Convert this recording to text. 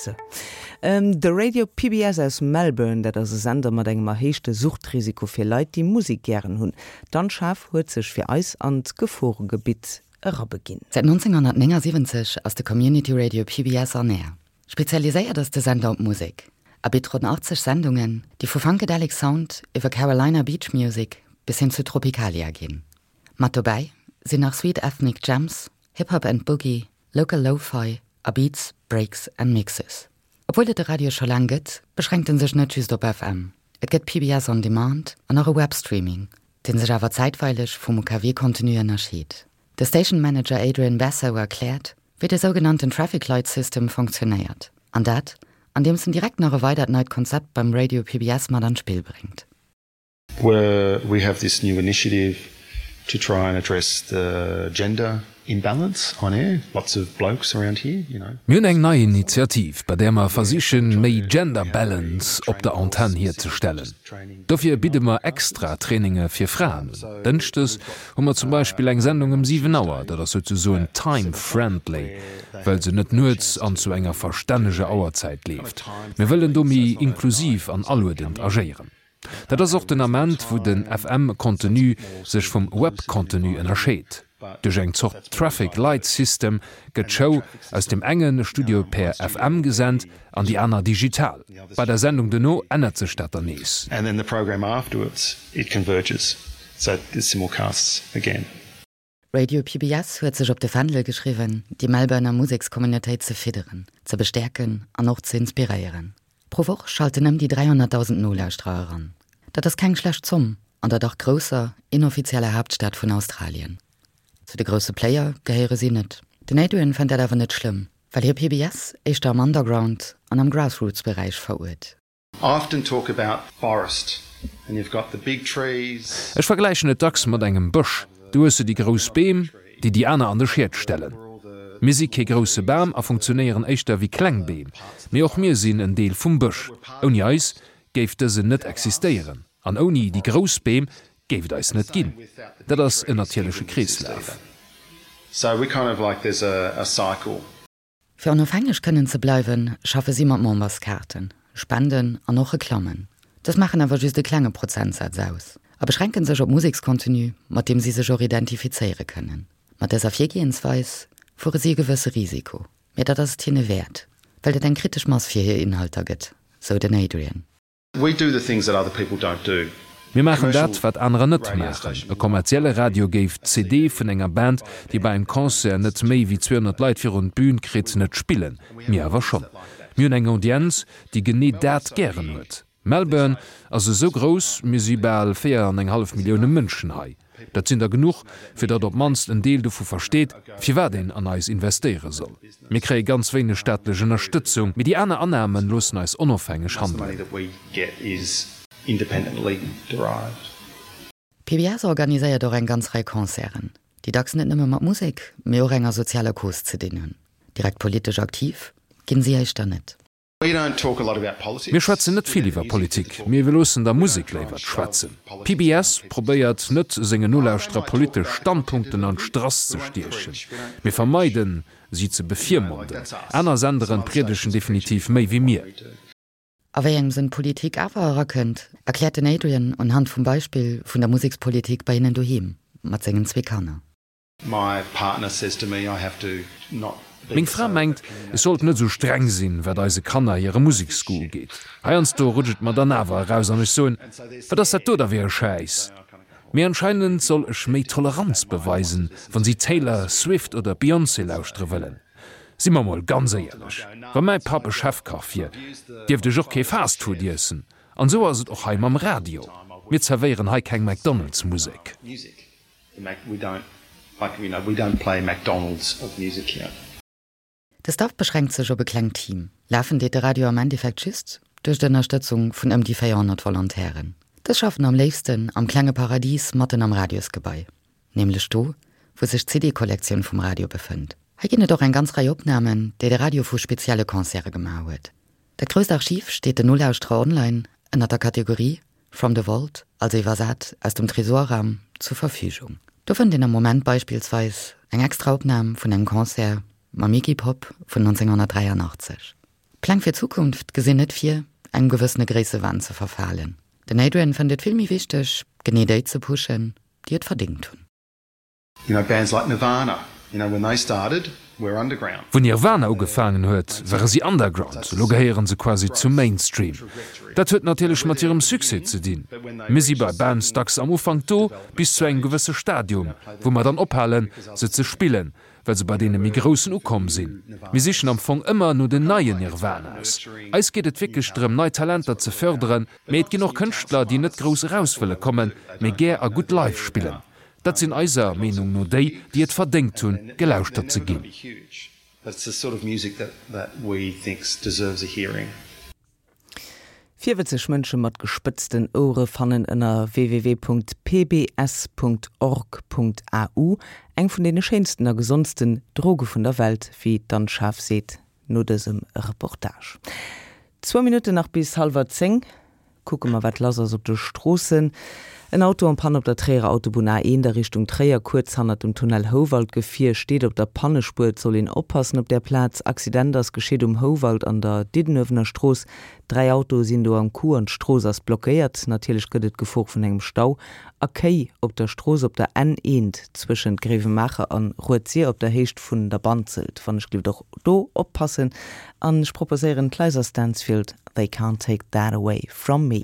Sou. De Radio PBS aus Melbourne, dat ass e Sender mat engem erhéichte Suchtrisiko fir Leit, déi Musek gären hunn. D'Anne Schaaf huet sech fir eis an d'Geforegebitt erabeginn. Säit 1979 ass de Community Radio PBS on Air. Spezialiséiert ass de Sender op Musek a bitt ronn 80 Sendungen, déi vu Funkadelic Sound iwwer Carolina Beach Music bis hin zu Tropicalia ginn. Mat dobäi sinn nach Sweet Ethnic Jams, Hip Hop and Boogie, Local Lo-Fi a Beats, Breaks and Mixes. Obwuel et de Radio scho laang gëtt, beschränkt en sech net just op FM. Et gëtt PBS On Demand an och e Webstreaming, dee sech awer zäitweileg vum UKW-Contenu ënnerscheet. De Station Manager Adrian Basso erkläert, wéi de sougenannten Traffic Light System fonctionéiert. An dat, andeems en direkt nach e weidert neit Konzept beim Radio PBS mat an d'Spill bréngt. Where we have this new initiative to try and address the gender imbalance on air, lots of blokes around here, you know. Mir hunn eng nei Initiativ, bei där mer versichen, méi Gender Balance op der Antenn hierzestellen. Dofir bidde mer extra Traininge fir Fraen un. Dënschdes hu mer zum Beispill eng Sendung ëm 7 Auer, dat ass souzesoen time friendly, well se net nuets an zu enger verstänneger Auerzäit leeft. Mir wëllen do méi inklusiv an aluedend agéieren. Dat ass och den Ament, wou den FM-Contenu sech vum Web-Contenu ënnerscheet. Duerch eng Zort Traffic Light System gëtt d'Show aus dem enge Studio per FM gesent an déi aner digital. Bei der Sendung dono ännert sech dat dann nees. Radio PBS huet sech op de Fändel geschriwwen, déi Melbourner Musekscommunautéit ze fidderen, ze bestäerken an och ze inspiréieren. Pro Woch schalten ëm déi 300.000 Nolauschterer eran. Dat ass keng schlecht Zomm an der dach grousser, inoffizieller Haaptstad vun Australien. Zu de grousse Player gehéiere si net. Den Adrian fënnt dat awer net schlëmm, well hie PBS éischter am Underground an am Grassroots-Beräich veruert. Ech vergläichen et dacks mat engem Bësch. Do hues de déi grouss Beem, déi déi aner an de Schiet stellen. Mir si kee grousse Bam a funktionéieren éischter wéi kleng Beem. Mee och mir sinn en Deel vum Bësch. Ouni eis géif dësen net existéieren an ouni déi grouss Beem géif et eis net ginn. Dat ass en natierleche Kreeslaf. Fir onofhängeg kënnen ze bleiwen, schaffe si mat Memberskaarten, Spenden an och Reklammen. Dës maachen awer just e klenge Prozentsaz aus a beschränke sech op Musekscontenu, mat deem si sech och identifizéiere kënnen. Mat dëser Virgehensweis fuere si e gewësse Risiko, mee dat ass et hinne wäert, well et eng kritesch Mass fir hir Inhalter gëtt, sou den Adrian. Mir maachen dat, wat anerer net maachen. E kommerzielle Radio géif d'CD vun enger Band, déi bei engem Concert net méi wéi 200 Leit virun d'Bün kritt, net spillen. Mir awer schonn. Mir hunn eng Audienz, déi genee dat gären huet. Melbourne ass esou grouss, mir si bal 4 an eng hallef Millioune Mënschen hei. Dat sinn der genuch, fir datt op d'mannst en Deel dovu versteet, firwat een an eis investéiere soll. Mir kréie ganz wéineg staatlech Ënnerstëtzung, mee déi aner Annahme loossen eis onofhängeg handelen. PBS organiséiert och eng ganz Rei Concerten, déi dacks net nëmme mat Musek, mee och enger sozialer Cause ze dinn hunn. Direkt politesch aktiv ginn si éischter net. Mir schwätzen net vill iwwer Politik, mee wir loossen der Musek léiwer schwätzen. PBS probéiert net sengen Nolauschterer politesch Standpunkten an d'Strass ze stiechen. Mir vermeiden, si ze bevirmonden. Aner Senderen priedegen definitiv méi wéi mir. A wéi engem Sënn Politik awer erakënnt, erkläert den Adrian unhand vum Beispill vun der Musekspolitik bei hinnen doheem mat sengen zwee Kanner. Meng Fra mengt, ech sollt net esou streng sinn, wat eise Kanner hire Museksgoût ugeet. Heiansdo rutscht et mer dann awer eraus an ech soen, Wat ass dat do da fir e Schäiss? Mee anscheinend soll ech méi Toleranz beweisen, wann si Taylor Swift oder Beyoncé lauschtere wëllen. Si mer mol ganz éierlech, wa mäi Papp e Chefkach wier, dierft ech och kee Fastfood iessen. An esou ass et och hei mam Radio. Mir zerwéieren hei keng McDonald's-Musek. De Staff beschränkt sech op e klengt Team. Lafen deet de Radio am Endeffekt just duerch d'Ënnerstëtzung vun ëm déi 400 Volontairen. Dës schaffen am léifsten am klenge Paradis matten am Radiosgebai, nämlech do, wou sech d'CD-Kollektioun vum Radio befënnt. Hei ginn et och eng ganz Rei Opnamen, déi de Radio vu spezielle Concerte gemaach huet. Dat grousst Archiv steet den Nolauschterer online ënner der Kategorie From the Vault, also iwwersat aus dem Tresorraum, zur Verfügung. Do fënnt een am Moment beispillsweis eng extra Opnam vun engem Concert mam Iggy Pop vun 1983. D'Pläng fir d'Zukunft gesinn net vir, engem gewëssene Gréissewahn ze verfalen. Den Adrian fënnt et vill méi wichteg, genee déi ze pushen, déi et verdéngt hunn. You know, bands like Nirvana, you know, when they started, were underground. Wou Nirvana ugefaangen huet, ware si underground, elo gehéiere se quasi zum Mainstream. Dat huet natierlech mat hirem Succès ze dinn. Mir si bei Bands dacks am Ufank do, bis zu engem gewësse Stadium, wou mer dann ophalen, se ze spillen, well se bei deene méi Groussen ukomm sinn. Mir sichen am Fong ëmmer no den neien Nirvanas. Eis geet et wierklech drëm, nei Talenter ze fërderen, mee et ginn och Kënschtler, déi net grouss eraus wëlle kommen, mee gär a gutt live spillen. Dat sinn eiser Meenung no déi, déi et verdéngt hunn, gelauschtert ze ginn. Virwëtzeg Mënsche mat gespëtzten Ouere fannen ënner www.pbs.org.au eng vun deene schéinsten a gesondsten Droge vun der Welt, wéi d'Anne Schaaf seet no dësem Reportage. Zwou Minutten nach bis hallwer 10. Kucke mer wat lass ass op de Stroossen. En Auto en panne op der Tréierer Autobunn A1 a Richtung Tréier, kuerz hannert dem Tunnel Houwald. D'Gefier steet op der Pannespuer, et soll een oppassen op där Plaz. Accident ass geschitt um Houwald an der Diddenuewener Strooss. 3 Autoe sinn do am Coup an d'Strooss ass blockéiert. Natierlech gëtt et d'Gefor vun engem Stau a Kéi op der Strooss op der N1 zwëschent Gréiwemaacher an Rued-Sir op der Héicht vun der Banzelt. Wann ech gelift och do oppassen. An ech proposéieren d'Liza Stansfield, They Can't Take That Away From Me.